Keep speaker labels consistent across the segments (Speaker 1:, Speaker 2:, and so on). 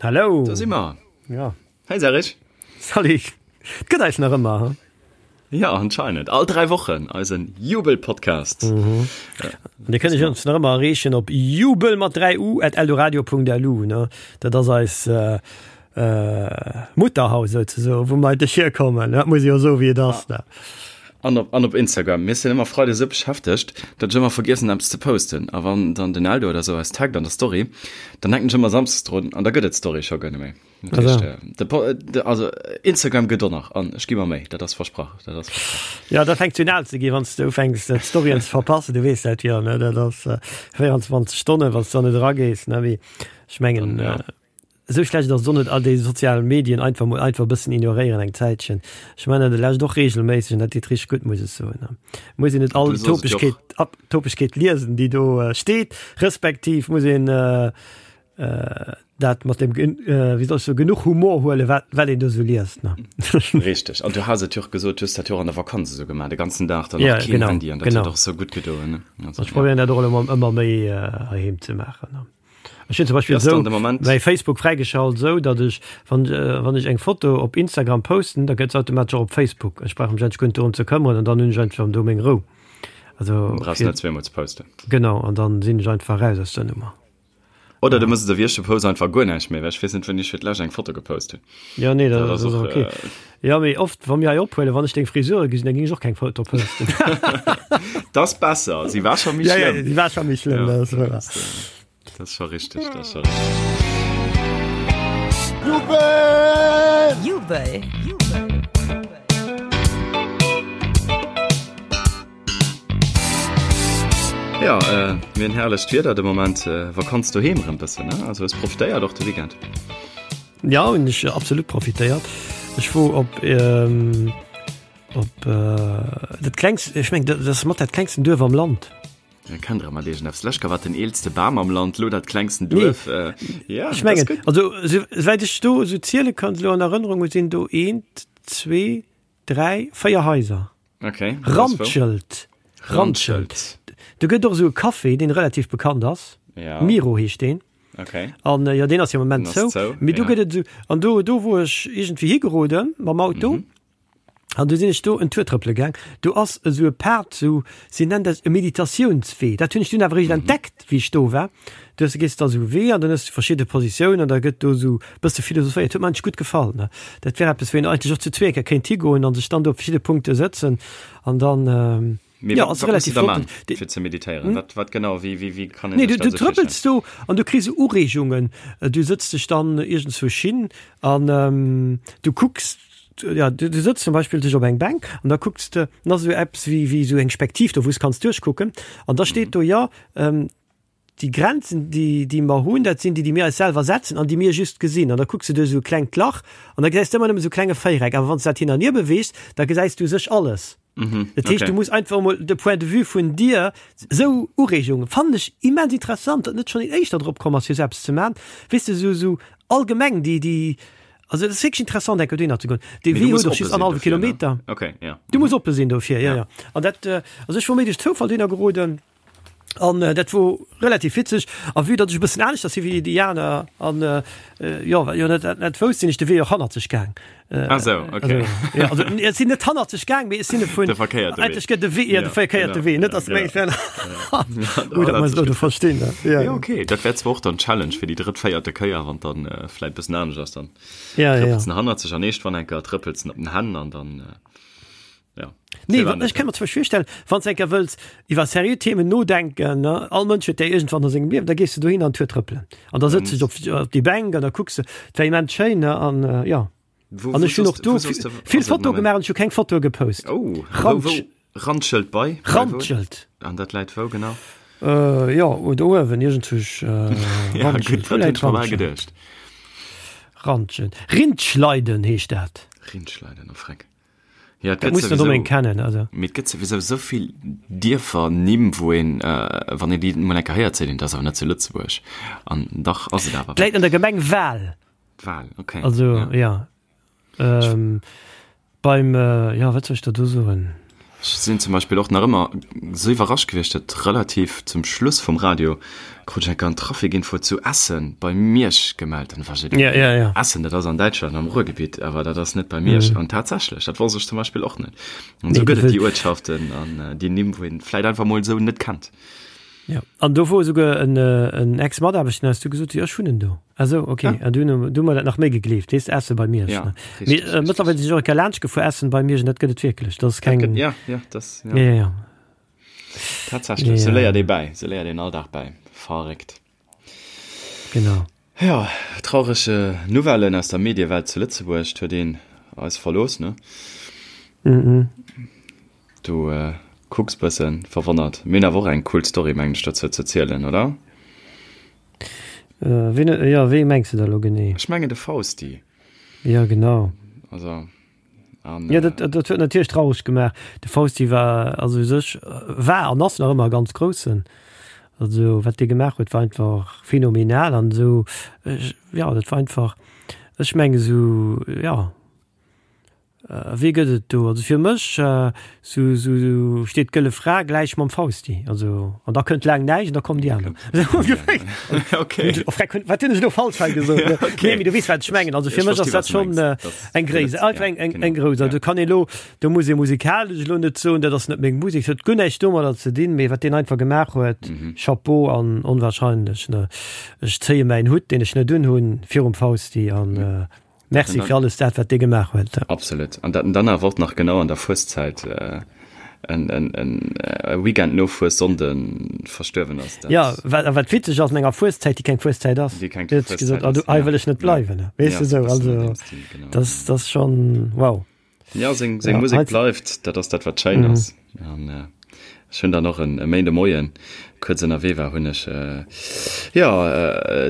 Speaker 1: Hallo!
Speaker 2: Do si mer!
Speaker 1: Ja.
Speaker 2: Hey Serge!
Speaker 1: Salut! Et gëtt eis nach ëmmer,
Speaker 2: he? Ja, anscheinend. All 3 Wochen eisen Jubel-Podcast.
Speaker 1: Mhm. Ja. An Dir kënnt ons nach ëmmer erreechen op jubel mat 3 u at eldoradio.lu, ne? Dat ass eis äh, äh, Mutterhaus souzesoen, wou mer eigentlech hierkommen. Dat muss ee jo soen, wéi et ass, ne?
Speaker 2: An op, an op Instagram. Mir sinn ëmmer freides esou beschäftegt, datt ech ëmmer vergiessen eppes ze posten. A wann dann den Eldo oder esou eis taggt an der Story, dann denken ech ëmmer samsdes drun an da gëtt et d'Story scho guer net méi. Dat heescht, äh, de Po- de, also Instagram gëtt och nach an ech gi mer Méi, dat ass versprach, dat ass versprach.
Speaker 1: Ja, dat fänkt un al ze ginn, wann s de ufänks d'Storyen ze verpassen. Du weess dat jo, ne? Dat ass äh, 24 Stonnen, wann s du dann net eragees, ne? Mee ech mengen,
Speaker 2: Dann, ja.
Speaker 1: äh, Esou schlecht ass et och net, all déi sozial Medien einfach mol einfach e bëssen ignoréieren eng Zäitchen. Ech man dat lescht och regelméisseg an dat deet richteg gutt, muss ech soen. Muss een net all Topegkeet, Topegkeet liesen, déi do steet, respektiv muss een dat mat dem, wéi soll ech soen, genuch Humor huelen, wat wat een do esou liest, ne.
Speaker 2: Richteg. An du has et jo och gesot, du hues dat jo och an der Vakanz esou gemaach, de ganzen Dag dann och keen Handy an dat huet och esou gutt gedoen, ne.
Speaker 1: Ech probéieren dat och elo ëmmer méi heiheem ze maachen, ne. Ech hunn zum Beispill esou mäi Facebook fräigeschalt, esou datt ech, wann wann ech eng Foto op Instagram posten, da gëtt se automatesch och op Facebook. Ech brauch mech eigentlech guer net dorëm ze këmmeren an dann hunn ech einfach do meng Rou.
Speaker 2: Also brauchs net zweemol ze posten.
Speaker 1: Genau, an dann sinn ech einfach raus aus der Nummer.
Speaker 2: Oder du mëss et ewéi ech, du posts einfach guer näischt méi, well ech weess net wéini ech fir d'lescht eng Foto gepost hunn.
Speaker 1: Ja, nee, dat, dat ass och okay. Äh, ja, mee oft, wa mir hei ophuelen, wann ech deng Frisure gesinn, dann ging ech och keng Foto posten.
Speaker 2: Das besser, si war scho méi
Speaker 1: ja, ja, si war scho méi schlëmm.
Speaker 2: Ja, das, das, äh, das scho richtig, das scho richtig.
Speaker 3: Jubel! Jubel!
Speaker 2: Ja, äh, mir hunn herrlecht Wieder de Moment, äh, Vakanz doheem rëm bëssen, ne? Also hues profitéiert och de Weekend.
Speaker 1: Ja, hunn ech absolut profitéiert. Ech wor op ähm, op äh, dat klengst, ech meng dat ass mat dat klengsten Duerf am Land.
Speaker 2: Ja, kennt der mat iergendeppes. Lech war den eelste Bam am Land, lo dat klengsten Duerf.
Speaker 1: Nee. Äh, ja, ech mengen, also souwäit ech do esou ziele kann, elo an Erënnerung hu sinn do eent, zwee, 3, 4 Haiser.
Speaker 2: Okay.
Speaker 1: Randschelt. Randschelt. Do gëtt och esou e Café, deen relativ bekannt ass.
Speaker 2: Ja.
Speaker 1: Miro heescht deen.
Speaker 2: Okay.
Speaker 1: An äh, ja, deen ass jo am Moment zou. zou. Mee do ja. gëtt et esou, an do, do wor ech iergendwéi higeroden mam Auto. Mhm. An du sinn ech do en Tour trëppele gaang. Do ass esou e Pad, esou, si nennen dat e Meditatiounswee. Dat hunn ech dunn awer eréischt mhm. entdeckt, wéi ech do war. Du hues, gees da esou e Wee an dann hues du verschidde Positiounen an da gëtt do esou e bësse philosophéiert. Huet mer eigentlech gutt gefall, ne. Dat wär eppes, wou een eigentlech och zu zweeker kéint higoen an sech dann do op verschidde Punkte sëtzen an dann,
Speaker 2: Mee
Speaker 1: jo,
Speaker 2: wat,
Speaker 1: ass
Speaker 2: wat muss
Speaker 1: relativ
Speaker 2: de da
Speaker 1: flott.
Speaker 2: man, fir ze meditéieren? Wat, wat genau, wéi, wéi, wéi kann een
Speaker 1: Nee,
Speaker 2: sech
Speaker 1: du,
Speaker 2: dat
Speaker 1: du
Speaker 2: esou
Speaker 1: trëppels
Speaker 2: virstellen?
Speaker 1: do an du kriss esou Ureegungen. Du sëtz dech dann iergendzwousch hin an du kucks, ja, du, du sëtz zum Beispill dech op eng Bänk an da kucks de, dann ass esou eppes wéi, wéi esou eng Spektiv do, wou s kanns duerchkucken an da steet do, jo, Déi Grenzen, déi, déi mer hunn, dat sinn déi, déi mir eis selwer setzen an déi mir just gesinn. An da kucks de duerch esou e klengt Lach an da gesäis de ëmmer nëmme esou e klenge Véiereck. Awer wann s de dat hin an hier beweegs, da gesäis du u sech alles. Dat heescht, du muss einfach emol de Point de vue vun dir, esou Ureegungen fannen ech immens interessant, datt net schonn een éischter drop komm ass, fir esou eppes ze maachen. Weess de, esou, esou allgemeng déi, déi, also et ass wierklech interessant, eng Kéier dohinner ze goen. Dee
Speaker 2: Mee du
Speaker 1: Wee
Speaker 2: muss
Speaker 1: huet och
Speaker 2: oppe
Speaker 1: just
Speaker 2: sinn
Speaker 1: annerhallwe
Speaker 2: dofir, ne?
Speaker 1: Kilometer.
Speaker 2: Okay, ja.
Speaker 1: Du muss oppe sinn dofir, jo, jo. An dat, also ech wor méi duerch Zoufall dohinner geroden. An dat wor relativ witzeg. A vue datt ech e bëssen aneschters si wéi déi aner an jo, well jo net net wousst, sinn ech de Wee och hannerzeg gaang.
Speaker 2: Ah sou, okay.
Speaker 1: Also, jo, also ech sinn net hannerzeg gaang, mee ech sinn e vun.
Speaker 2: De verkéierte Wee.
Speaker 1: Eigentlech gëtt de Wee, jo, de verkéierte Wee, net datt meng ech wär. Gutt, dat muss ech elo
Speaker 2: verstinn, ne? Jo, jo, okay. Dat wär zwar och dann d'Challenge fir déi drëtt, véierte Kéier, wann dann vläit bëssen anescht ass, dann trëppels en hannerzeg an eescht wann enker trëppels en op den Hänn an dann.
Speaker 1: Ja. Nee, wat, ech kann mir zum Beispiel virstellen, wann s enker wëlls iwwer seriö Themen nodenken, ne, all Mënsch huet déi iergendwann a sengem Liewen, da gees du dohin an d'Tour trëppelen. An da sëtz dech op, op déi Bänk an da kucks de, et war immens schéin, ne, an äh, ja.
Speaker 2: Wo,
Speaker 1: An
Speaker 2: wo
Speaker 1: ech hunn och
Speaker 2: soss,
Speaker 1: do
Speaker 2: wo soss de,
Speaker 1: vill
Speaker 2: also,
Speaker 1: Fotoe
Speaker 2: Moment.
Speaker 1: gemaach an ech hu keng Fotoe gepost.
Speaker 2: Oh, wou,
Speaker 1: Randsch,
Speaker 2: wou, Randschelt bei? Bei wou?
Speaker 1: Randschelt.
Speaker 2: An dat läit wou genau?
Speaker 1: Äh, jo, do uewen, iergendzwousch, äh,
Speaker 2: Ja,
Speaker 1: Randschelt.
Speaker 2: gutt,
Speaker 1: Wou
Speaker 2: dat hunn
Speaker 1: läit
Speaker 2: ech mer bal
Speaker 1: Randschelt?
Speaker 2: geduecht.
Speaker 1: Randschelt. Rindschleiden heescht dat.
Speaker 2: Rindschleiden, oh Freck. Ja, et
Speaker 1: Dat
Speaker 2: gëtt
Speaker 1: muss den
Speaker 2: souwisou,
Speaker 1: Domaine kennen, also.
Speaker 2: mee et gëtt souwisou esou vill Dierfernimm, wou een, wann een déi emol eng Kéier héiert, seet een, dat ass awer net zu Lëtzebuerg. An dach ass et awer.
Speaker 1: Läit an der Gemeng Wal.
Speaker 2: Wal, okay.
Speaker 1: Also, ja.
Speaker 2: Ja.
Speaker 1: Ähm, beim, ja, wat soll ech der do soen?
Speaker 2: Ech sinn zum Beispill och nach ëmmer sou iwwerrascht gewiescht, datt relativ zum Schluss vum Radio krut ech eng Kéier en Trafikinfo zu Essen bei Miersch gemellt. An da war ech esou,
Speaker 1: Ja, ja, ja.
Speaker 2: Essen, dat ass an Däitschland am Ruhrgebitt, awer dat ass net bei Miersch. An tatsächlech, dat wosst ech zum Beispill och net. An sou
Speaker 1: Nee,
Speaker 2: gëtt et
Speaker 1: dat
Speaker 2: déi Uertschaften an déi Nimm, wou een vläit einfach mol esou net kennt.
Speaker 1: Ja, an do wor esouguer en, en Ex-Mataarbechter, den hues du gesot, jo ech wunnen do. Ah sou, okay. Ah. An du hunn du mer dat nach méi gegleeft, weess de, Essen bei Miersch.
Speaker 2: Ja,
Speaker 1: ne?
Speaker 2: richtig,
Speaker 1: Mee, äh,
Speaker 2: richtig.
Speaker 1: mëttlerweil sinn ech och eng Kéier laanscht gefuer, Essen bei Miersch, an dat gëtt et wierklech. Dat ass
Speaker 2: Dat
Speaker 1: keng.
Speaker 2: gëtt, ja, ja, das, ja.
Speaker 1: Ja, ja, ja.
Speaker 2: Tatsächlech,
Speaker 1: Ja.
Speaker 2: sou léiert ee bäi, sou léiert een all Dag bäi. Verréckt.
Speaker 1: Genau.
Speaker 2: Jo, traureg Nouvellen aus der Mediewelt zu Lëtzebuerg. 't huet een eis verlooss, ne?
Speaker 1: Mhm.
Speaker 2: Du kucks bëssen verwonnert. Mir hunn awer och eng cool Story, mengen ech, dozou ze zielen, oder?
Speaker 1: Ween, jo, wee mengs de da lo genee?
Speaker 2: Ech mengen de Fausti.
Speaker 1: Jo, genau.
Speaker 2: Also.
Speaker 1: An, ja, dat, dat huet natierlech traureg gemaach. De Fausti war also u sech war an ass nach ëmmer e ganz groussen. Also wat dee gemaach huet, war einfach phänomenal an esou ja, dat war einfach ech menge sou ja wee gëtt et do? Also fir mech sou sou steet d'Gëlle Fra gläich mam Fausti. Also an da kënnt laang näischt an da kommen déi aner.
Speaker 2: Okay.
Speaker 1: Wat hunn ech elo falsch hei gesot?
Speaker 2: Okay.
Speaker 1: Nee, mee du weess wat ech mengen. Also fir
Speaker 2: Ech
Speaker 1: mech ass
Speaker 2: versti
Speaker 1: dat
Speaker 2: wat du
Speaker 1: schonn
Speaker 2: mengs.
Speaker 1: äh,
Speaker 2: Das
Speaker 1: eng Gréisst,
Speaker 2: gëtt,
Speaker 1: einfach
Speaker 2: ja,
Speaker 1: eng, eng,
Speaker 2: genau.
Speaker 1: eng grouss.
Speaker 2: Ja.
Speaker 1: Also kann ee lo, do muss ee musikalesch elo net soen, dat ass net meng Musek, dat huet guer näischt domadder ze dinn, mee wat deen einfach gemaach huet,
Speaker 2: Mhm.
Speaker 1: Chapeau an onwahrscheinlech, ne. Ech zéie mäin Hutt, deen ech net unhunn, virum Fausti an äh, Merci fir alles dat, wat dee gemaach huet.
Speaker 2: Absolut. An dat en dann awer och nach genau an der Fueszäit en Weekend no Fuessonnden verstuerwen ass.
Speaker 1: Jo, wat, a wat witzeg ass, an enger Fueszäit, déi keng Fueszäit ass.
Speaker 2: Déi keng
Speaker 1: Huet
Speaker 2: Fueszäit
Speaker 1: gesot,
Speaker 2: ass,
Speaker 1: ah, hei wëll ech net bleiwen. Weess de esou, also dat ass schonn wow.
Speaker 2: Jo, seng Musek bleift, dat ass dat, wat schéin ass. An ech hunn dann och en Méinde Moien, kuerz ënnerwee war, hunn ech, jo,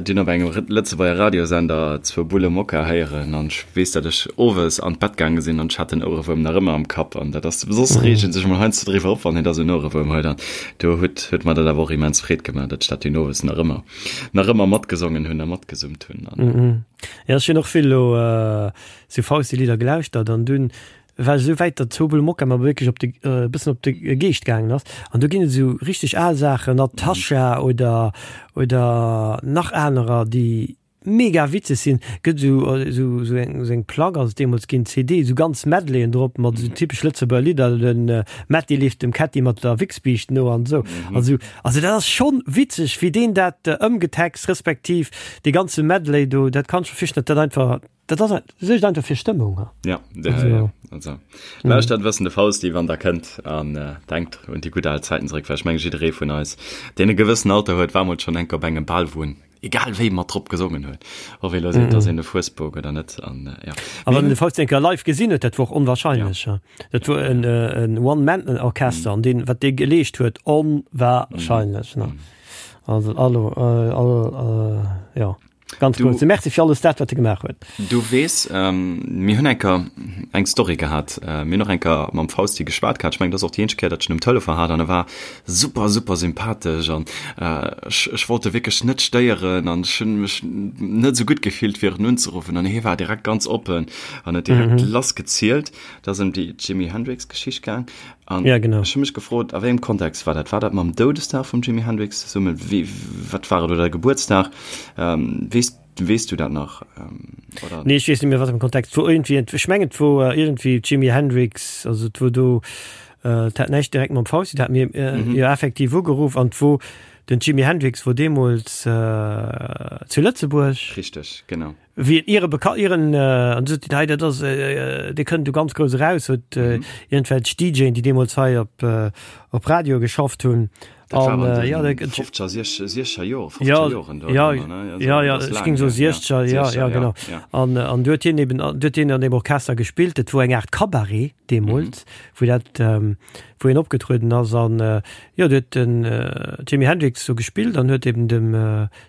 Speaker 2: dunn op engem Lëtzebuerger Radiosender zwou Bulle Mokka héieren. An ech weess, datt ech owes an d'Bett gaange sinn an ech hat den Ouerewuerm nach ëmmer am Kapp. An dat ass, soss reegt ee sech emol heiansdo driwwer op, wann een da sou en Ouerewuerm huet. An do huet, huet mer dat awer och immens Freed gemaach, datt ech dat dunn owes nach ëmmer, nach ëmmer matgesongen hunn a matgesummt hunn.
Speaker 1: An. Jo, ech hunn och vill elo sou Fausti-Lidder gelauschtert an dunn war esou wäit, datt Zobel Mokka mer wierklech op de, e bëssen op de Geescht gaangen ass. An do ginn et esou richteg al Saachen, Natascha oder, oder nach anerer, déi mega witzeg sinn. Gëtt esou, esou, esou eng, esou eng Plack ass et deemools ginn, CD, esou ganz Medleyen drop mat esou typesch Lëtzebuerger Lidder, de Metty leeft dem Ketty mat der Wichsbiischt no an esou. Also, also dat ass schonn witzeg, wéi deen dat ëmgetext, respektiv dee ganze Medley do, dat kann ech mer virstellen, datt dat einfach Dat ass suergt einfach fir Stëmmung.
Speaker 2: Ja, ja, also, ja. Also, lauschtert mm. wëssen de Fausti, wann der kënnt an äh, denkt un déi gutt al Zäiten zeréck, well ech meng jidderee vun eis, deen e gewëssen Alter huet, war mol schonn enk op engem Bal, wou en egal wéi mat drop gesongen huet, ob ee lo seet, mm. dass een e Fuesbok oder net an äh, ja.
Speaker 1: A wann de Fausti enker live gesinn huet, dat wor och onwahrscheinlech. Ja. Dat wor en, äh, en One-Man-Orchester mm. an deen, wat dee geleescht huet, onwahrscheinlech. Mm. Ne? Also, allo, äh, all, äh, ja. Ganz
Speaker 2: Du-
Speaker 1: grousse Merci fir alles dat, wat e gemaach huet.
Speaker 2: Du weess, ähm, mir hunn enker eng Story gehat. Äh, mir hunn och enker mam Fausti geschwat gehat. Ech mengen, dat ass och déi eenzeg Kéier, datt ech en um Telefon hat an e war super, super sympathesch an äh, ech, ech wollt e wierklech net stéieren an ech hunn mech net esou gutt gefillt, fir en unzeruffen an hie war direkt ganz oppen an huet direkt mhm. lassgezielt. Et ass ëm déi Jimi Hendrix-Geschicht gaang an
Speaker 1: Ja, genau.
Speaker 2: ech hu mech gefrot, a wéi engem Kontext war dat? War dat mam Doudesdag vum Jimi Hendrix zesummen? Wéi, wat war et? Oder Gebuertsdag? Ähm, weess, weess du dat nach? Ähm,
Speaker 1: oder? Nee, ech weess net méi, wat am Kontext wor. Iergendwéi, ech mengen, et wor iergendwéi Jimi Hendrix, also et wor do, äh, et hat näischt direkt mam Fausti, et hat mir äh, mhm. jo effektiv ugeruff an et wor den Jimi Hendrix wor deemools äh, zu Lëtzebuerg.
Speaker 2: Richteg, genau.
Speaker 1: Wéi en iere beka ieren an sot hei dat ass dee kënnt do ganz grouss eraus, huet iergendwelch DJen, déi deemools hei op op Radio geschafft hunn.
Speaker 2: Dat war an
Speaker 1: ja,
Speaker 2: den 50er, 60er Joer, 50er
Speaker 1: ja,
Speaker 2: Joren do
Speaker 1: ja,
Speaker 2: ëmmer, ne? Also,
Speaker 1: ja, ja,
Speaker 2: dat ass
Speaker 1: ech
Speaker 2: laang
Speaker 1: géing soe
Speaker 2: hier, ja.
Speaker 1: 60er, ja,
Speaker 2: 60er,
Speaker 1: ja, genau.
Speaker 2: ja.
Speaker 1: An an du huet hien eben du huet hien an deem Orchester gespillt, dat wor eng Aart Cabaret deemools, wou dat wou hien opgetrueden ass an jo, du huet den Jimi Hendrix do gespillt an huet eben dem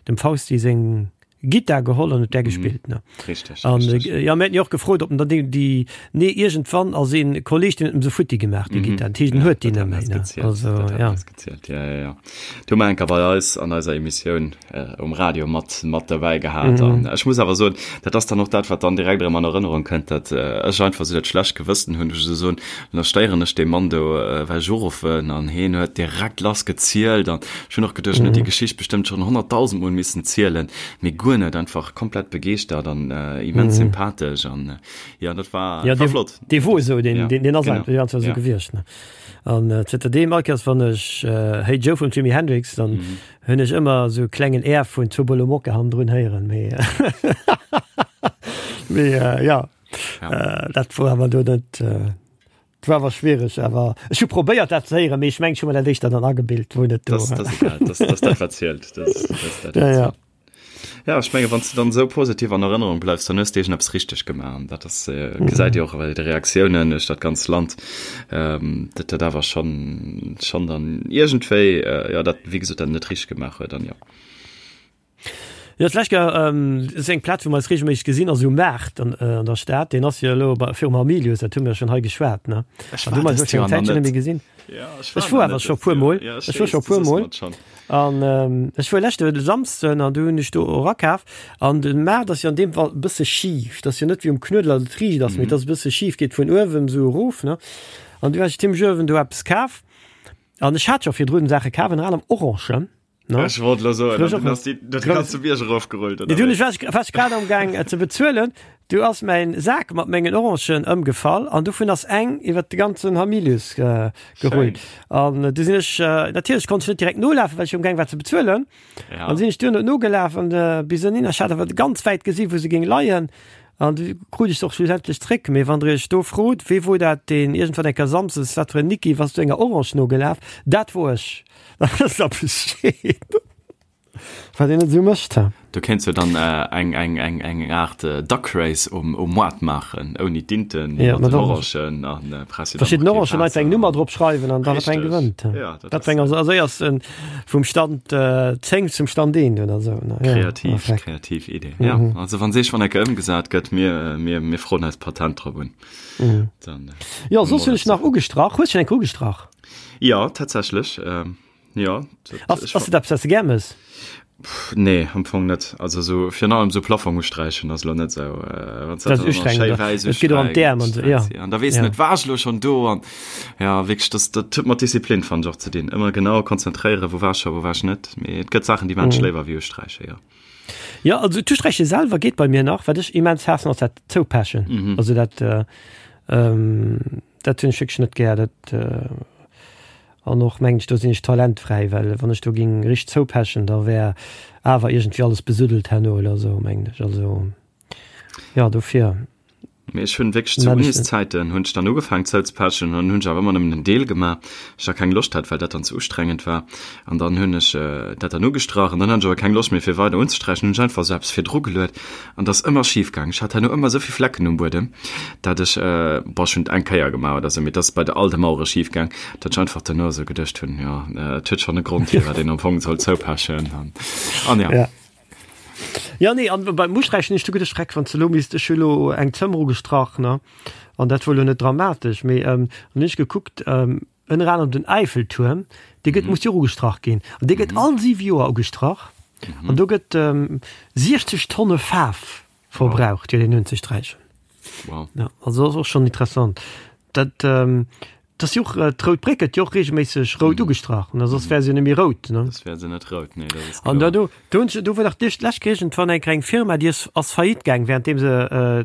Speaker 1: dem Fausti seng. Gittar geholl an huet där gespillt ne.
Speaker 2: Richteg,
Speaker 1: An
Speaker 2: richteg.
Speaker 1: äh, ja, mir haten jo och gefrot, ob en dann déi, déi nee iergendwann ass een Kolleg, deen huet em se futti gemaach, déi Gittar. Dat heescht, en
Speaker 2: Ja,
Speaker 1: huet déi
Speaker 2: dat
Speaker 1: net
Speaker 2: hat
Speaker 1: méi
Speaker 2: eis
Speaker 1: ne.
Speaker 2: gezielt,
Speaker 1: Also
Speaker 2: dat hat
Speaker 1: ja.
Speaker 2: eis gezielt, ja, ja, ja. Du hu mer enker bei eis an eiser Emissioun äh, um Radio mat, mat derbäi gehat. An ech muss awer soen, dat ass dann och dat, wat dann direkt erëm an Erënnerung kënnt, dat äh, ech einfach esou dat schlecht Gewëssen hunn, wou ech esou soen, An da stéieren ech dee Mann do, well ech uruffen an heen huet direkt lass gezielt an ech hunn och geduecht, en huet déi Geschicht bestëmmt schonn 100.000 Mol missen zielen, mee guer net, einfach komplett begeeschtert an immens sympathesch an jo, dat war,
Speaker 1: Ja,
Speaker 2: war flott.
Speaker 1: dee wor esou, deen,
Speaker 2: Ja,
Speaker 1: deen ass
Speaker 2: genau,
Speaker 1: einfach esou
Speaker 2: ja.
Speaker 1: gewiescht, ne. An zënter deem, all Kéiers wann ech Hey Joe vum Jimi Hendrix, dann hunn ech ëmmer esou e klengen Air vun Turbolo Mocca hannendrun héieren, mee mee ja.
Speaker 2: Ja.
Speaker 1: Äh, dat wor awer do net äh, dat war awer schwiereg, awer ech hu probéiert dat ze héieren, mee ech mengen ech hu mer dat éischter dann agebilt, wou net do.
Speaker 2: Das, das, egal, das, das dat wat zielt. Das, das, dat,
Speaker 1: Ja, ja.
Speaker 2: Ja, ech menge wann du dann sou positiv an Erënnerung bleifs, dann hues de eppes richteg gemaach. An dat ass äh, gesäit Dir och bei de Reaktiounen duerch dat ganzt Land, ähm, dat dat awer schon schon dann iergendwéi äh, ja dat wéi gesot dat net richteg gemaach huet an ja.
Speaker 1: Jo, d'lescht Kéier, ass eng Plaz, wou mer eis reegelméisseg gesinn, ass um Maart an der Stad. Deen ass jo elo bei, virum Hamilius, dat hu mir schonn hei geschwat, ne?
Speaker 2: Ech
Speaker 1: An
Speaker 2: war
Speaker 1: du mer
Speaker 2: dëst
Speaker 1: ech eng
Speaker 2: Joer nach
Speaker 1: Zäitchen net
Speaker 2: net.
Speaker 1: méi gesinn.
Speaker 2: Ja, ech
Speaker 1: Ech
Speaker 2: war
Speaker 1: wor
Speaker 2: nach
Speaker 1: awer
Speaker 2: net
Speaker 1: scho
Speaker 2: dëst
Speaker 1: puer
Speaker 2: Joer.
Speaker 1: Mol.
Speaker 2: Ja, ech
Speaker 1: Ech wor
Speaker 2: weess,
Speaker 1: scho
Speaker 2: du
Speaker 1: puer
Speaker 2: soss
Speaker 1: Mol.
Speaker 2: mer et schonn.
Speaker 1: An ech wor leschte Samsden an du hunn ech do och akaf. An de Maart ass jo an deem Fall e bësse schif. Dat ass jo net wéi um Knuedler, datt et riicht ass, mee et ass e bësse schif, geet vun uewen esou erof, ne? An du hat ech zimmlech uewen do eppes kaf. An ech hat scho virdrun Saache kaf, ënner anerem Orangen.
Speaker 2: No? Ech wollt lo soen, dann ass déi dat ganze Bierg erofgerullt,
Speaker 1: oder? Dunn war ech war ech grad am Gaang ze bezuelen, du ass mäin Sak mat mengen Orangen ëmgefall an dovun ass eng iwwer de ganzen Hamilius gerullt. An du sinn ech natierlech konnt ech net direkt nolafen, well ech um Gaang war ze bezuelen.
Speaker 2: Ja.
Speaker 1: An sinn ech duerno nogelaf an bis ënnin, ech hat awer ganz wäit gesi wou se géing leien. An du krut ech se och schlussendlech zréck. Mee wann der iech do frot, wee wor dat deen iergendwann eng Kéier Samsdes, wat fir en Niki, wass du enger Orange nogelaf? Dat wor ech. Dat ass da Bescheed. Wat een net esou mécht, he.
Speaker 2: Do kéints du dann eng eng eng eng Aart Duck Race um um Moart maachen, ouni d'Inten,
Speaker 1: Ja,
Speaker 2: mat
Speaker 1: mat
Speaker 2: den
Speaker 1: Orangen.
Speaker 2: Orangen an press jo dann
Speaker 1: Verschidden
Speaker 2: och kee
Speaker 1: Orangen einfach eng
Speaker 2: Waasser.
Speaker 1: Nummer drop schreiwen an da wat eng
Speaker 2: Richteg,
Speaker 1: gewënnt, he.
Speaker 2: ja, dat
Speaker 1: Dat
Speaker 2: ass
Speaker 1: weng ass als éiersten vum Stand 10 zum Stand 1 oder esou, ne? Ja,
Speaker 2: kreativ,
Speaker 1: perfekt.
Speaker 2: kreativ Idee. Ja, also wann seech wann ecke ëmgesat gëtt, mir mir mir froen eis Patent drop un. Dann
Speaker 1: Jo, soss hunn ech nach ugestrach. Hues schonn eng Kéier ugestrach?
Speaker 2: Jo, tatsächlech. Jo.
Speaker 1: Ass, ass dat eppes, wat s de gär mëss?
Speaker 2: Nee, am Fong net. Also sou virun allem sou Plafong usträichen ass lo net sou, wann s
Speaker 1: Dat
Speaker 2: dat
Speaker 1: ass
Speaker 2: dann och nach
Speaker 1: ustrengend,
Speaker 2: schéi
Speaker 1: oder?
Speaker 2: wäiss
Speaker 1: Et geet och an d'Äerm an sou, ja.
Speaker 2: usträichs. An da weess
Speaker 1: Ja.
Speaker 2: net, war ech lo schonn do? An ja, wierklech, dat, dat huet mat Disziplin, fannen ech, och ze dinn. Ëmmer genau konzentréieren, wou war ech scho, wou war ech net. Mee et gëtt Saachen, déi maan ech léiwer wéi usträichen, jo.
Speaker 1: Jo, also d'Usträiche selwer geet bei mir nach. Wat ech immens haassen, ass dat Zoupechen. Also dat, dat hunn ech wierklech net gär. Dat. An och mengen ech, do sinn ech talentfräi, well wann ech do ging richteg zoupechen, da wär awer iergendwéi alles besuddelt herno oder esou, mengen ech. Also, jo, dofir.
Speaker 2: Mee ech hunn wierklech zu Uniszäiten hunn ech dann ugefaangen zouzepechen an hunn ech awer ëmmer nëmmen en Deel gemaach, well ech da keng Loscht hat, well dat dann ze ustrengend war. An dann hunn ech dat dann ugestrach an dann hat ech awer keng Loscht méi fir weider unzesträichen, hunn ech einfach esou eppes virdru geluet An dat ass ëmmer schif gaang. Ech hat herno ëmmer esou vill Flecken um Buedem, dat ech, bon, ech hunn et eng Kéier gemaach oder esou, mee et ass bei de all de Mauere schif gaang, dat ech einfach duerno esou geduecht hunn, jo, et huet schonn e Grond, firwat een am Fong soll zoupechen an, an ja.
Speaker 1: Ja. Jo, nee, an beim Usträichen hunn ech du geduecht, Schreck, wann s de elo misst, ech hu elo eng Zëmmer ugestrach, ne, an dat wor elo net dramatesch, mee dann hunn ech gekuckt, Ënner anerem den Äifeltuerm, dee gëtt, muss jo och ugestrach ginn. An dee gëtt all siwe Joer ugestrach. An do gëtt 60 Tonne Faarf verbraucht, fir deen unzesträichen.
Speaker 2: Wow.
Speaker 1: Ja, also dat ass och schonn interessant. Dat, dat ass jo och, d'Rout Bréck gëtt jo och reegelméisseg rout ugestrach. An soss wär se jo net méi rout, ne?
Speaker 2: Soss wär se net rout, nee, dat ass
Speaker 1: An
Speaker 2: kloer.
Speaker 1: da do, Do hunn ech, do wor dach d'lescht lech iergendwann eng kleng Firma, déi ass ass faillite gaang, währenddeem se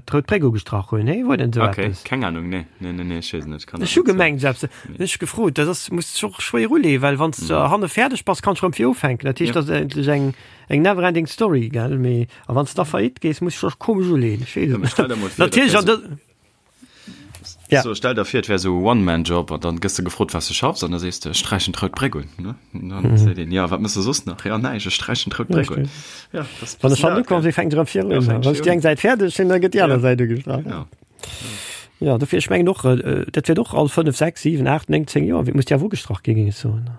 Speaker 1: d'Rout Bréck ugestrach hunn. Nee, wor denn esou
Speaker 2: Okay,
Speaker 1: eppes?
Speaker 2: keng Ahnung, nee, nee, nee, nee, ech weess et net, kann dat
Speaker 1: Ech hu
Speaker 2: net soen.
Speaker 1: gemengt esou eppes.
Speaker 2: Nee.
Speaker 1: Hunn ech gefrot, dat ass, muss sech och schwéier uleeën, well wann s de hanne fäerdeg bass, kanns de rëm vir ufänken. Dat heescht,
Speaker 2: Ja.
Speaker 1: dat ass eigentlech eng eng never ending story, gell? Mee a wann s de da faillite gees, muss sech och komesch uleeën. Ech weess
Speaker 2: Ja,
Speaker 1: et
Speaker 2: mee
Speaker 1: net.
Speaker 2: stell der mol vir, dat
Speaker 1: Natierlech
Speaker 2: wär
Speaker 1: an
Speaker 2: sou.
Speaker 1: dë. Ja.
Speaker 2: So, stell der vir, et wär esou e One-Man-Job an dann gëss de gefrot, wat s de schaffs an da sees de, ech sträichen d'Rout Bréck un. Ne? An dann seet een, ja, wat mëss de soss nach? Ja, näischt, ech sträichen d'Rout Bréck un. Ja, dat ass
Speaker 1: Wann ech
Speaker 2: bëssen
Speaker 1: han
Speaker 2: dat,
Speaker 1: ukomm
Speaker 2: gell?
Speaker 1: sinn, fänkt erëm vir
Speaker 2: Ja,
Speaker 1: un.
Speaker 2: fänkt
Speaker 1: Wann ech
Speaker 2: vir
Speaker 1: déi
Speaker 2: un.
Speaker 1: eng Säit fäerdeg hunn, da gëtt déi aner
Speaker 2: Ja,
Speaker 1: Säit ugestrach.
Speaker 2: genau.
Speaker 1: Ja, dofir, ech mengen och, dat wäert och all 5, 6, 7, 8, 9, 10 Joer, muss déi awer ugestrach ginn, géing ech soen.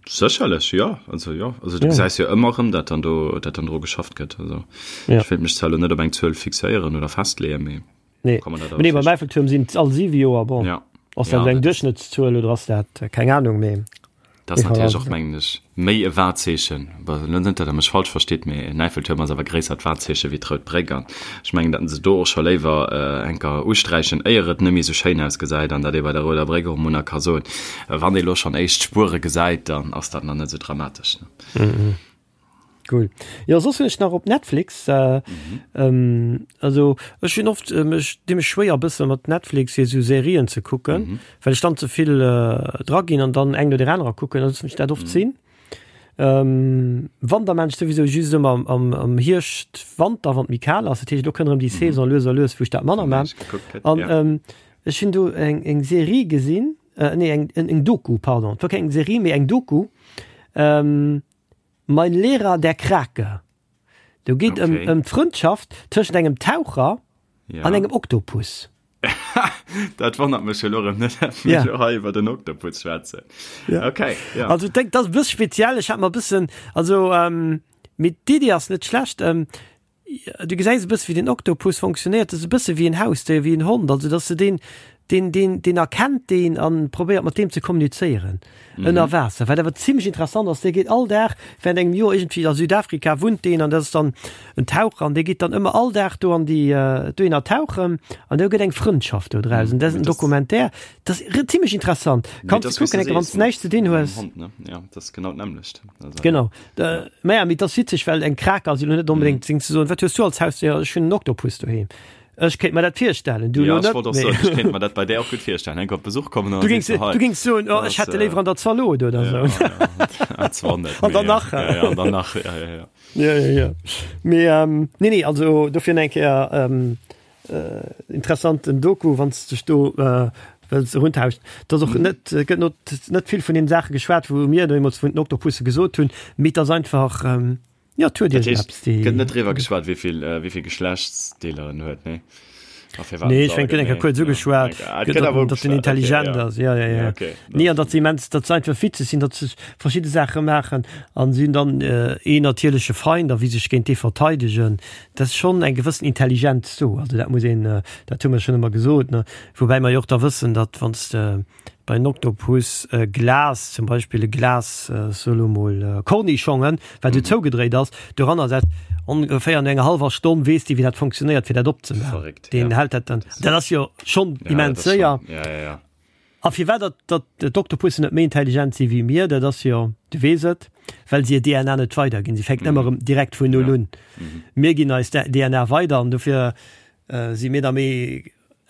Speaker 2: Sécherlech, jo. Also jo, also du gesäis jo ëmmer erëm, datt dann do, datt dann dru geschafft gëtt. Also
Speaker 1: Ja.
Speaker 2: ech wéilt mech zwar elo net op eng Zuel fixéieren oder festleeën, mee
Speaker 1: Nee.
Speaker 2: kann man dat
Speaker 1: Mee nee,
Speaker 2: awer
Speaker 1: beim Eiffeltuerm sinn et all 7 Joer, bon.
Speaker 2: Ja.
Speaker 1: Ass
Speaker 2: Ja,
Speaker 1: dat eng
Speaker 2: dat ass-
Speaker 1: Duerchschnëttszuel oder ass dat, keng Ahnung, mee.
Speaker 2: Dat ass natierlech och, mengen ech, méi e Wahrzeechen, bon, net datt Der mech falsch verstitt, mee en Äiffeltuerm ass awer gréissert Wahrzeeche wéi d'Rout Bréck an ech mengen, datt se do och scho léiwer enker usträichen, éier et net méi esou schéin ausgesäit an datt ee bei der Rouder Bréck och emol nach ka soen, wann ee elo schonn éischt Spuere gesäit, dann ass dat nach net esou dramatesch.
Speaker 1: Cool. Jo, soss hunn ech nach op Netflix, also ech hunn oft, ech di mech schwéier e bësse mat Netflix fir esou Serien ze kucken, well ech dann ze vill dra ginn an dann eng no der anerer kucken, da loossen ech dat oft sinn. Wann da maan ech souwisou just ëmmer am am Hierscht, Wanter, wann et méi kal ass, dat heescht elo kënnt erëm déi Saison lues a lues wou ech dat manner maan. An ech hunn do eng eng Serie gesinn, nee eng eng Doku, pardon, et war keng Serie mee eng Doku, Mein Lehrer der Krake. Do geet ëm
Speaker 2: Okay.
Speaker 1: ëm d'Frëndschaft tëschent engem Taucher
Speaker 2: Ja.
Speaker 1: an engem Oktopus.
Speaker 2: Dat wonnert mech elo erëm net, dat mir
Speaker 1: Ja.
Speaker 2: elo hei iwwer den Oktopus schwätzen.
Speaker 1: Ja.
Speaker 2: Okay, ja.
Speaker 1: Also denk, dat ass e bësse speziell. Ech hat mer e bëssen, also ähm, mee d'Iddi ass net schlecht. Ähm, Du gesäis e bësse wéi den Oktopus fonctionnéiert, dat ass e bësse wéi en Hausdéier, wéi en Hond, also dass de deen, deen, deen, deen erkennt deen an probéiert mat deem ze kommunizéieren ënner Waasser. Wat awer zimlech interessant ass, dee geet all Dag während engem Joer iergendwéi a Südafrika wunnt deen an dat ass dann en Taucher an dee geet dann ëmmer all Dag do an déi dohinner tauchen an do gëtt eng Frëndschaft do draus an dat ass en Documentaire, dat ass zimlech interessant. Kanns de kucken, enke wann s de näischt ze dinn hues.
Speaker 2: Ja, dat ass genau d'nämmlecht.
Speaker 1: Genau. Äh, naja, mee dat ass witzeg, well eng Krake ass jo net onbedéngt mm. ze soen, wat hues du als Hausdéier? Ech hunn en Oktopus doheem. Ech kéint mer dat virstellen. Du
Speaker 2: ja,
Speaker 1: net,
Speaker 2: wollt och soen, ech kéint mer dat bei där och gutt virstellen. Enk op Besuch kommen
Speaker 1: du gings, du gings soen, oh, ech hätt de léiwer an der Zalot oder
Speaker 2: ja,
Speaker 1: so.
Speaker 2: Ja, zwar net,
Speaker 1: an dann nach.
Speaker 2: Ja, ja, an dann nach, ja, ja, ja.
Speaker 1: Ja, ja, ja. Mee, ähm, nee, nee, also dofir eng Kéier ähm, Äh, interessanten Doku, wann s dech do äh, wëlls eruntauschen. Dat ass och net, äh, gëtt not, net vill vun den Saache geschwat, wou mir deemools vun den Oktopusse gesot hunn, mee et ass einfach, ähm, ja, et huet
Speaker 2: Dat heescht,
Speaker 1: iergendeppes, déi.
Speaker 2: gëtt net driwwer geschwat, wéi vill, äh, wéi vill Geschlechtsdeeler en huet, nee? A firwat
Speaker 1: Nee,
Speaker 2: en
Speaker 1: ech
Speaker 2: se
Speaker 1: mengen, gëtt eng Kéier
Speaker 2: allgemeng,
Speaker 1: kuerz
Speaker 2: ja.
Speaker 1: ugeschwat,
Speaker 2: Ah, et
Speaker 1: gëtt,
Speaker 2: gëtt
Speaker 1: datt
Speaker 2: awer
Speaker 1: en, datt en
Speaker 2: ugeschwat, okay,
Speaker 1: intelligent
Speaker 2: ja.
Speaker 1: ass, ja, ja,
Speaker 2: Ja,
Speaker 1: ja.
Speaker 2: okay.
Speaker 1: Nee, an datt se immens, datt se einfach witzeg sinn, datt se verschidde Saache maachen an si hunn dann äh, een natierleche Feind a wéi sech géint dee verteidegen. Dat ass schonn eng gewëssen Intelligenz do. Also dat muss een, dat hu mer schonn ëmmer gesot, ne. Woubäi mer jo och da wëssen, datt wann s de bei en Oktopus e Glas, zum Beispill e Glas, so elo mol Cornichongen, wat esou zougedréit ass, doranner setzt, ongeféier no enger hallwer Stonn weess dee wéi dat funktionéiert fir dat opzemaachen.
Speaker 2: Verréckt,
Speaker 1: Deen
Speaker 2: ja.
Speaker 1: hält dat dann, dat ass jo schonn
Speaker 2: Ja, dat
Speaker 1: immens
Speaker 2: ass schonn,
Speaker 1: séier.
Speaker 2: ja, ja, ja.
Speaker 1: A firwat datt datt d'Oktopussen net méi intelligent si wéi mir, dat ass jo, du weess et, well se hir DNA net weiderginn. Si fänken ëmmer erëm direkt vun Null un. Mir ginn eis DNA weider an dofir si mir da méi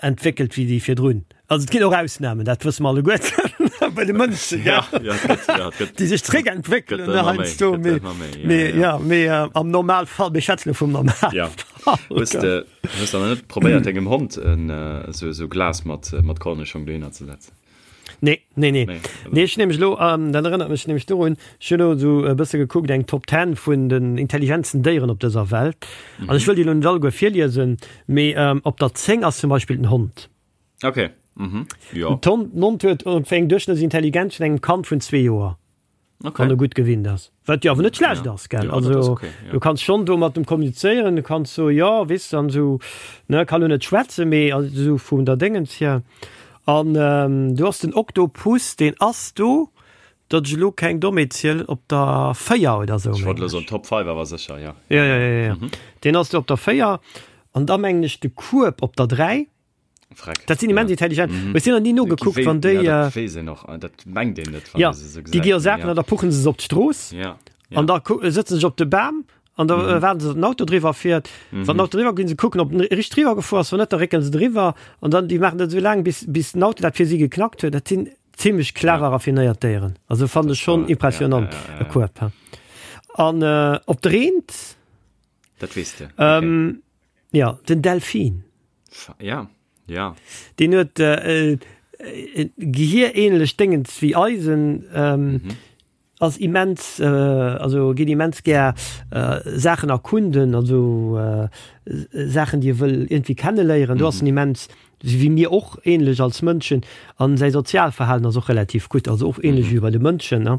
Speaker 1: entwéckelt wéi déi virdrun. Also et ginn och Ausnamen, dat wësse mer alleguerten bei de Mënschen,
Speaker 2: Ja, ja, et gëtt, ja, et gëtt.
Speaker 1: déi sech zréckentwéckelen
Speaker 2: Gëtt ëmmer méi,
Speaker 1: heiansdo.
Speaker 2: gëtt
Speaker 1: Mee,
Speaker 2: ëmmer méi, ja,
Speaker 1: mee,
Speaker 2: ja.
Speaker 1: ja, mee am Normalfall, mir schwätzen elo vum Normalfall.
Speaker 2: Ja. Hues de, hues de nach net probéiert dengem Hond en esou esou Glas mat mat Kornischong dohinner ze setzen?
Speaker 1: Nee, nee, nee.
Speaker 2: Nee,
Speaker 1: Nee, ech nämlech elo, ähm, dat erënnert mech nämlech dorun, ech hunn elo esou e bësse gekuckt, eng Top Ten vun den intelligentsten Déieren op dëser Welt. An ech wëll déi elo net alleguer virliesen, mee ähm, op der 10 ass zum Beispill den Hond.
Speaker 2: Okay, mhm, jo.
Speaker 1: Den Hond huet ongeféier eng Duerchschnëttsintelligenz vun engem Kand vun zwee Joer.
Speaker 2: Okay.
Speaker 1: Wann e gutt gewinnt ass. Wat jo awer net schlecht
Speaker 2: Ja.
Speaker 1: ass, gell?
Speaker 2: Ja, dat ass
Speaker 1: Also,
Speaker 2: okay, ja.
Speaker 1: du kanns schonn do mat em kommunizéieren, du kanns soen, jo, weess de, an esou, ne, ka lo net schwätzen, mee esou vun der Déngens hier. An do ass den Oktopus, deen ass do, datt ech elo keng Dommheet zielen, op der 4 oder esou,
Speaker 2: Ech wollt
Speaker 1: mengen
Speaker 2: elo soen,
Speaker 1: ech.
Speaker 2: Top 5 awer sécher, ja.
Speaker 1: Ja, ja, ja, ja. Deen ass do op der 4. An da mengen ech de Kueb op der 3.
Speaker 2: Freck.
Speaker 1: Dat sinn immens
Speaker 2: ja.
Speaker 1: intelligent.
Speaker 2: Mhm.
Speaker 1: Ech sinn nach ni nogekuckt, wann déi.
Speaker 2: Ja, dat weess een och, dat mengt een net, wann
Speaker 1: ja,
Speaker 2: ee se sou
Speaker 1: déi gi
Speaker 2: gesäit.
Speaker 1: jo Saachen
Speaker 2: Ja.
Speaker 1: an da puchen se se op d'Strooss.
Speaker 2: Ja. Ja.
Speaker 1: An da sëtzen se op de Bam an da mhm. waarden se, datt den Auto driwwer fiert. Mhm. Wann den Auto driwwer ginn se kucken, ob den richteg driwwer gefuer ass, wann net, da réckelen se driwwer. An dann déi maachen dat esou laang, bis, bis den Auto dat fir si geknackt huet. Dat sinn zimmlech clever, ja. raffinéiert Déieren. Also fannen ech schonn impressionant,
Speaker 2: ja, ja, ja,
Speaker 1: e
Speaker 2: ja.
Speaker 1: Kueb. An äh, op der Eent.
Speaker 2: Dat weess de. Okay.
Speaker 1: Ähm, ja, den Delfin.
Speaker 2: Ja, ja.
Speaker 1: Deen huet äh, äh, gehierähnlech Déngens wéi eisen. Ähm, mhm. ass immens, also geet immens gär Saachen erkunden, also Saachen déi e wëll iergendwéi kenneléieren. Do ass en immens, wéi mir och ähnlech als Mënschen. An säi Sozialverhalen ass och relativ gutt, also och ähnlech wéi bei de Mënschen, ne.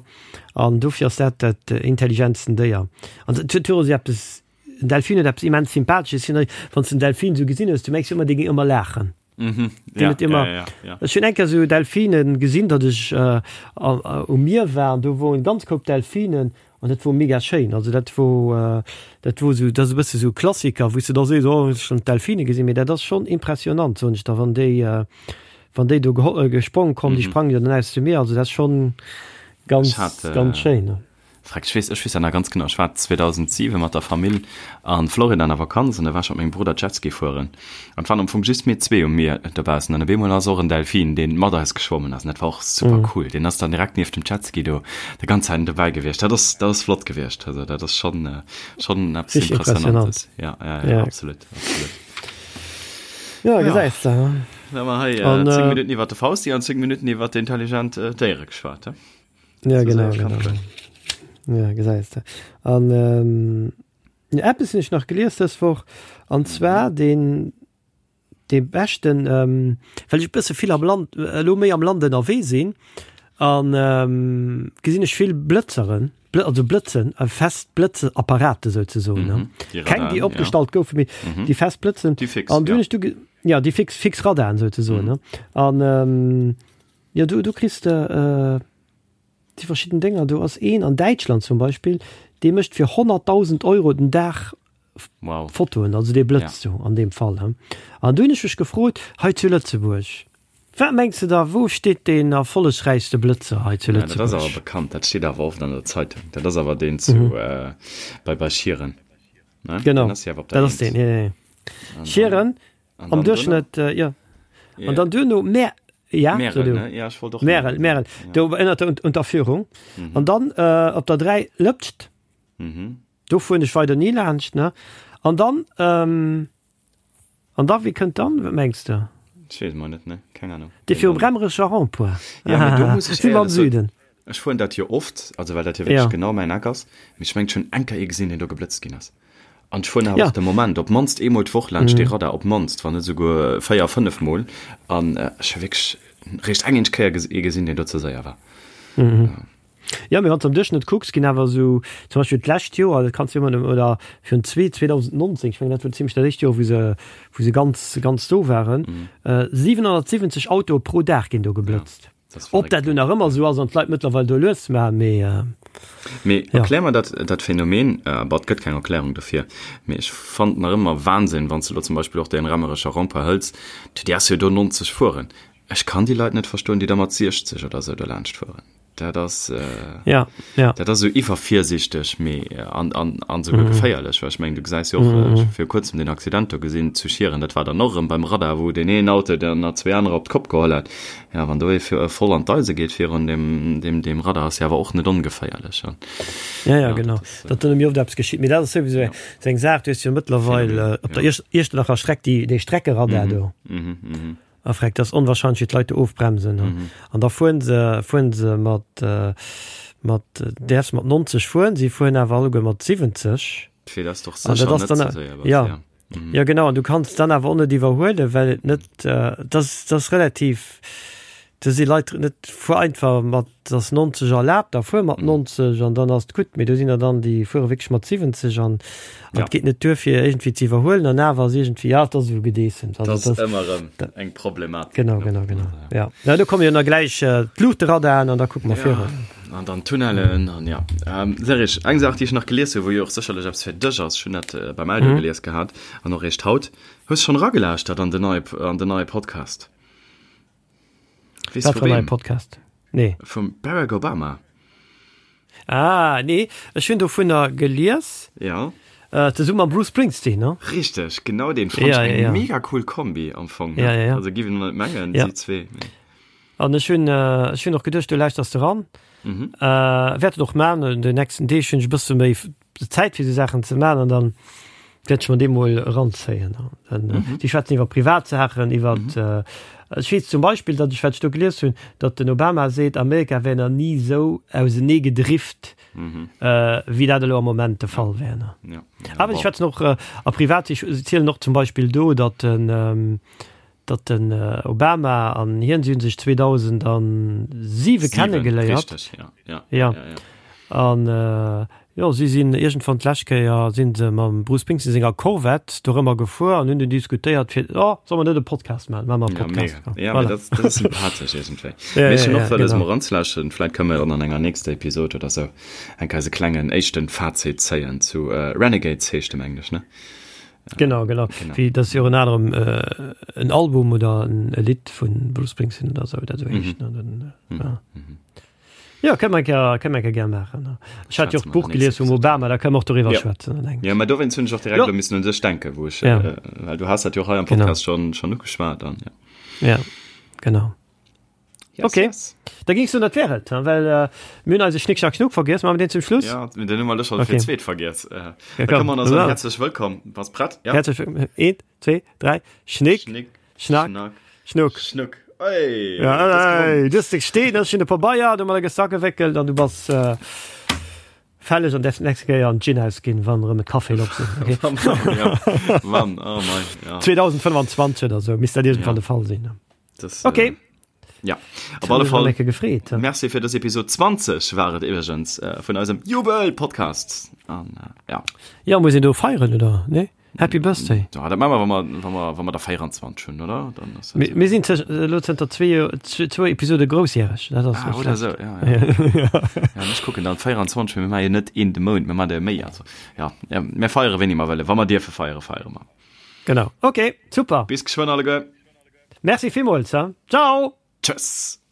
Speaker 1: An dofir ass dat dat intelligentsten Déier. An et huet och esou eppes, en Delfin huet eppes immens Sympathesches, wann s de en Delfin esou gesinn hues, du mengs jo ëmmer, dee géing ëmmer laachen.
Speaker 2: Mhm.
Speaker 1: Ja, ja, immer, ja, ja. Ech hunn eng Kéier sou Delfinen gesinn, datt ech äh, um Mier war an do woren ganz Koup Delfinen an dat wor mega schéin. Also dat wor äh, dat wor sou, dat ass e bësse sou Klassiker, wou s de da sees, oh ech hunn d'Delfine gesinn, mee dat ass schonn impressionant, soen ech der, wann déi äh, wann déi do geho gesprong kommen, déi mhm. sprangen jo dann aus dem Mier, also dat ass schonn ganz
Speaker 2: hat, äh,
Speaker 1: ganz schéin.
Speaker 2: Freck, ech weess, ech weess dat nach ganz genau. Ech war 2007 mat der Famill a Florida an der Vakanz an da war ech mat mengem Brudder Jetski fueren. An et waren am Fong just mir zwee um Mier dobaussen an op eemol ass och en Delfin, deen mat eis geschwommen ass. An dat war och super cool. Deen ass dann direkt nieft dem Jetski do déi ganz Zäit dobäi gewiescht. Dat ass, dat ass flott gewiescht. Also dat ass schonn, schonn eppes
Speaker 1: Richtig
Speaker 2: Impressionantes.
Speaker 1: impressionant.
Speaker 2: Ja, ja, ja, absolut, absolut.
Speaker 1: Ja, gesäis de.
Speaker 2: Da hu mer hei
Speaker 1: An,
Speaker 2: 10 Minutten iwwer de Fausti an 10 Minutten iwwer intelligent Déiere geschwat, he?
Speaker 1: Ja, genau, genau. Ja, gesäis de. An ähm, eppes hunn ech nach gelies dës Woch, an zwar den dee beschten, ähm, well ech e bësse vill am Land, elo méi am Land ënnerwee sinn, an ähm, gesinn ech vill Blëtzeren, Blë also Blëtzen, äh, fest Blëtzeapparate souzesoen, ne?
Speaker 2: Mhm, déi
Speaker 1: Keng, déi
Speaker 2: Radaren, ja.
Speaker 1: opgestallt goufen, mee
Speaker 2: Mhm.
Speaker 1: déi fest Blëtzen.
Speaker 2: Déi fix,
Speaker 1: An du
Speaker 2: ja.
Speaker 1: hunn ech du ge ja, déi fix, fix Radaren souzesoen,
Speaker 2: Mhm.
Speaker 1: ne? An ähm, Jo, do, do kriss de déi verschidden Dénger. Do ass een an Däitschland zum Beispill, dee mécht fir 100.000 Euro den Dag
Speaker 2: Wow.
Speaker 1: Fotoen, also dee blëtzt do an deem Fall. He. An du hunn ech mech gefrot, hei zu Lëtzebuerg, wat mengs de da, wou steet deen erfollegräichste Blëtzer hei zu
Speaker 2: Ja, dat ass awer
Speaker 1: Lëtzebuerg?
Speaker 2: bekannt, dat steet awer oft an der Zeitung. Dat ass awer deen zu, bei, bei Schieren, ne?
Speaker 1: Genau,
Speaker 2: Deen ass jo awer op der
Speaker 1: dat ass
Speaker 2: Eent.
Speaker 1: deen, jo, jo, jo.
Speaker 2: An dann,
Speaker 1: Schieren,
Speaker 2: an
Speaker 1: am
Speaker 2: dann duerno?
Speaker 1: Duerchschnëtt, jo. An dann duerno Mä ja,
Speaker 2: Märel, ne? Ja, ech wollt och
Speaker 1: Märel,
Speaker 2: Märel
Speaker 1: Märel. Do ënnert der Unterführung.
Speaker 2: Mhm.
Speaker 1: An dann äh, op der 3 Lëpscht.
Speaker 2: Mhm.
Speaker 1: Do fueren ech weider ni laanscht, ne? An dann, ähm, an da, wie kënnt dann? Wat mengs de?
Speaker 2: Ech weess mol net, ne? Keng Ahnung.
Speaker 1: Dee virum Remmerecher Rond-point.
Speaker 2: Ja, mee do muss ech
Speaker 1: Si mer am
Speaker 2: éierlech soen,
Speaker 1: Süden.
Speaker 2: ech fueren dat jo oft, also well dat jo wierklech
Speaker 1: Ja.
Speaker 2: genau mäin Eck ass, mee ech mengen, ech hunn eng Kéier ee gesinn, deen do geblëtzt ginn ass. An ech fueren awer
Speaker 1: Ja.
Speaker 2: och de Moment op d'mannst eemol d'Woch laanscht dee Radar, op d'mannst, wann net esouguer 4, 5 Mol. An ech hu wierklech réischt eng eenzeg Kéier ee gesinn, deen do ze séier war.
Speaker 1: Jo, mee wann s de am Duerchschnëtt kucks, ginn awer esou, zum Beispill d'lescht Joer, dat kanns du ëmmer nëmmen, oder virun zwee, 2019, ech mengen dat wor zimlech dat éischt Joer, wou se, wou se ganz, ganz do waren, 770 Autoe pro Dag ginn do geblëtzt. Ob dat elo nach ëmmer esou ass an d'Leit mëttlerweil do lues maachen, mee.
Speaker 2: Mee erklär mer dat, dat Phänomen, bon, et gëtt keng Erklärung dofir, mee ech fannen nach ëmmer Wahnsinn, wann s de elo zum Beispill och deen Remmerecher Rond-point hëls, du däerfs jo do 90 fueren. Ech kann déi Leit net verstoen, déi da mat 60 oder esou dolaanscht fueren. Dat ass,
Speaker 1: ja, ja.
Speaker 2: dat ass esou iwwervirsichteg, mee an, an, an esouguer geféierlech, well ech mengen, du gesäis jo och, ech hu viru kuerzem deen Accident do gesinn zu Schieren, dat war dann och erëm beim Radar, wou deen een Auto dann nach zwee anerer op d'Kopp geholl hat. Ja, wann do ee voll an d'Eise geet virun deem, deem, deem Radar, ass jo awer och net ongeféierlech. An,
Speaker 1: Ja, ja, genau.
Speaker 2: dat ass,
Speaker 1: Datt do nëmme oft eppes geschitt. Mee dat ass souwisou
Speaker 2: ja.
Speaker 1: esou eng Saach, du hues jo mëttlerweil
Speaker 2: Phänomen,
Speaker 1: op der
Speaker 2: ja.
Speaker 1: Iecht, Iechternacher Streck déi, dee Streckeradar do.
Speaker 2: Mhm, mhm.
Speaker 1: A freck, dat ass onwahrscheinlech, wéi d'Leit do ofbremsen.
Speaker 2: Mhm.
Speaker 1: An da fueren se, fueren se mat, mat, däerfs mat 90 fueren, si fueren awer alleguer mat 70.
Speaker 2: Fir dat ass doch
Speaker 1: An dat
Speaker 2: sécher
Speaker 1: ass
Speaker 2: net
Speaker 1: dann,
Speaker 2: ze séier,
Speaker 1: ja.
Speaker 2: ja. Mhm.
Speaker 1: Ja genau, an du kanns dann awer och net iwwerhuelen, well et net, dat ass, dat ass relativ, do si Leit net, fuer einfach mat, ass 90 erlaabt, da fuer mat 90 an dann ass et gutt. Mee do sinn der dann, déi fuere wierklech mat 70 an
Speaker 2: Ja.
Speaker 1: et geet net duer fir iergendwéi ze iwwerhuelen an awer ass iergendwéi, ja, et ass esou Gedeessems.
Speaker 2: Dat
Speaker 1: Also
Speaker 2: ass
Speaker 1: dat
Speaker 2: ëmmer erëm eng Problematik.
Speaker 1: Genau,
Speaker 2: ne?
Speaker 1: genau, genau.
Speaker 2: Also,
Speaker 1: Ja. Na, do komme jo nach gläich d'Luuchterradaren an da kucke mer
Speaker 2: Ja,
Speaker 1: virun.
Speaker 2: an dann d'Tunnellen an ja. Ähm, Serge, eng Saach, déi ech nach gelies hu, wou jo och sécherlech eppes fir dech ass, ech hunn dat äh, beim Eldo
Speaker 1: Mhm.
Speaker 2: gelies gehat an och eréischt haut. Hues schonn eragelauschtert an den neie, an den neie Podcast?
Speaker 1: Weess Wat
Speaker 2: vu
Speaker 1: fir en neie
Speaker 2: weem?
Speaker 1: Podcast? Nee.
Speaker 2: Vum Barack Obama.
Speaker 1: Ah, nee, ech hunn dovunner gelies.
Speaker 2: Ja.
Speaker 1: Äh, zesumme mam Bruce Springsteen, ne?
Speaker 2: Richteg, genau deen. Fand
Speaker 1: Ja,
Speaker 2: ech
Speaker 1: ja,
Speaker 2: eng
Speaker 1: ja.
Speaker 2: mega cool Kombi am Fong, ne?
Speaker 1: Ja, ja, ja.
Speaker 2: Also giff een net mengen,
Speaker 1: Ja.
Speaker 2: si zwee, mee.
Speaker 1: An ech hunn, ech hunn och geduecht, du lauschters de ran.
Speaker 2: Mhm.
Speaker 1: Äh, wäert et och man, an den nächsten Deeg hunn ech e bësse méi Zäit fir esou Saachen ze man an dann. Wäert ech mer dee mol eranzéien. Mhm. Si schwätzen iwwer Privatsaachen, iwwer mhm. äh, ech weess zum Beispill, datt ech wat ech do gelies hunn, datt den Obama seet, Amerika wär nach ni esou ausenee gedrift, mhm. äh, wéi dat elo am Moment de Fall wär. Ne? Ja. Ja, Awer si schwätzen och äh, a privat, si zielen och zum Beispill do, datt den ähm, datt den Obama an hien, si hunn sech 2007 kennegeléiert.
Speaker 2: Richtig, ja. Ja,
Speaker 1: ja. ja, ja. An äh, jo, si sinn iergendwann d'lescht Kéier sinn se mam Bruce Springsteen senger Corvette dorëmmer gefuer an hunn dunn diskutéiert fir, oh, solle mer net e Podcast maachen? Maache mer e
Speaker 2: Ja,
Speaker 1: Podcast.
Speaker 2: mega. Ja, voilà. dat, dat ass sympathesch iergendwéi. Ja, Mee ech hunn och wëlles genau. mol eranzelauschteren. Vläit kënne mer dann an enger nächster Episod oder sou eng Kéier eise klengen éischten Fazit zéien zu äh, Renegades heescht e mengen ech, ne?
Speaker 1: Genau, genau. genau. Wie das jo ënner anerem äh, en Album oder en e Lidd vun Bruce Springsteen oder sou dat sou heescht. Mhm. Dann, äh, mhm. ja. Mhm. Ja, kënne mer eng Kéier, kënne mer eng Kéier gär maachen. Ne? Ech hat jo och d'Buch gelies vum Obama, da kënne mer och doriwwer
Speaker 2: ja.
Speaker 1: schwätzen.
Speaker 2: Dann ja, mä dowéinst hunn ech och direkt elo missen un dech denken, wou ech, ja. äh, well du has dat jo och hei am Podcast genau. schon, schon ugeschwat dann,
Speaker 1: ja. Ja, genau. Yes, okay. Yes. Da ging du dat wär et, well äh, mir hunn eise Schnick Schnack Schnuck vergiess, maache mer deen zum Schluss?
Speaker 2: Ja, den hu mer elo scho fir zweet vergiess. Äh, ja, da kann man also herzlech wëllkomm. Bass prett?
Speaker 1: Ja. Herzlech wëllkomm. Eent, zwee, dräi. Schnick, Schnick Schnack, Schnack Schnuck.
Speaker 2: Schnuck. Ey,
Speaker 1: ja, ey, du hast dech stehen, hast schon de Pabeier, du mat Sack gewickelt an du bass äh, fälleg an därfst nächste Kéier an d'Gin ausginn, wann erëm e Café op sinn. Okay?
Speaker 2: ja, Mann, oh mein,
Speaker 1: ja. 2025 oder so misst dat irgendwann ja. de Fall sinn.
Speaker 2: Das,
Speaker 1: okay.
Speaker 2: Äh, ja, op alle Fall
Speaker 1: gefreet.
Speaker 2: Merci fir dës Episode 20 war et iwwergens äh, vun eisem Jubel-Podcast. An, äh, ja.
Speaker 1: Ja, muss een do feieren oder nee? Happy Birthday.
Speaker 2: Ja, dat maache mer, wa mer, wa mer, wa mer der 24 hunn, oder? Dann
Speaker 1: ass dat. Mir sinn elo zënter zwee, zwou Episode groussjäreg.
Speaker 2: Dat ass ah, oder sou, ja, ja. ja. ja, ech kucken dann 24, mir maache jo net een de Mount, mir maache der méi. Also, ja, ja, mir feiere wéini mer wëllen. Wa mer dierfe feiere, feiere mer.
Speaker 1: Genau. Okay, super.
Speaker 2: Bis geschwënn alleguer.
Speaker 1: Merci villmools. Ciao.
Speaker 2: Tschëss.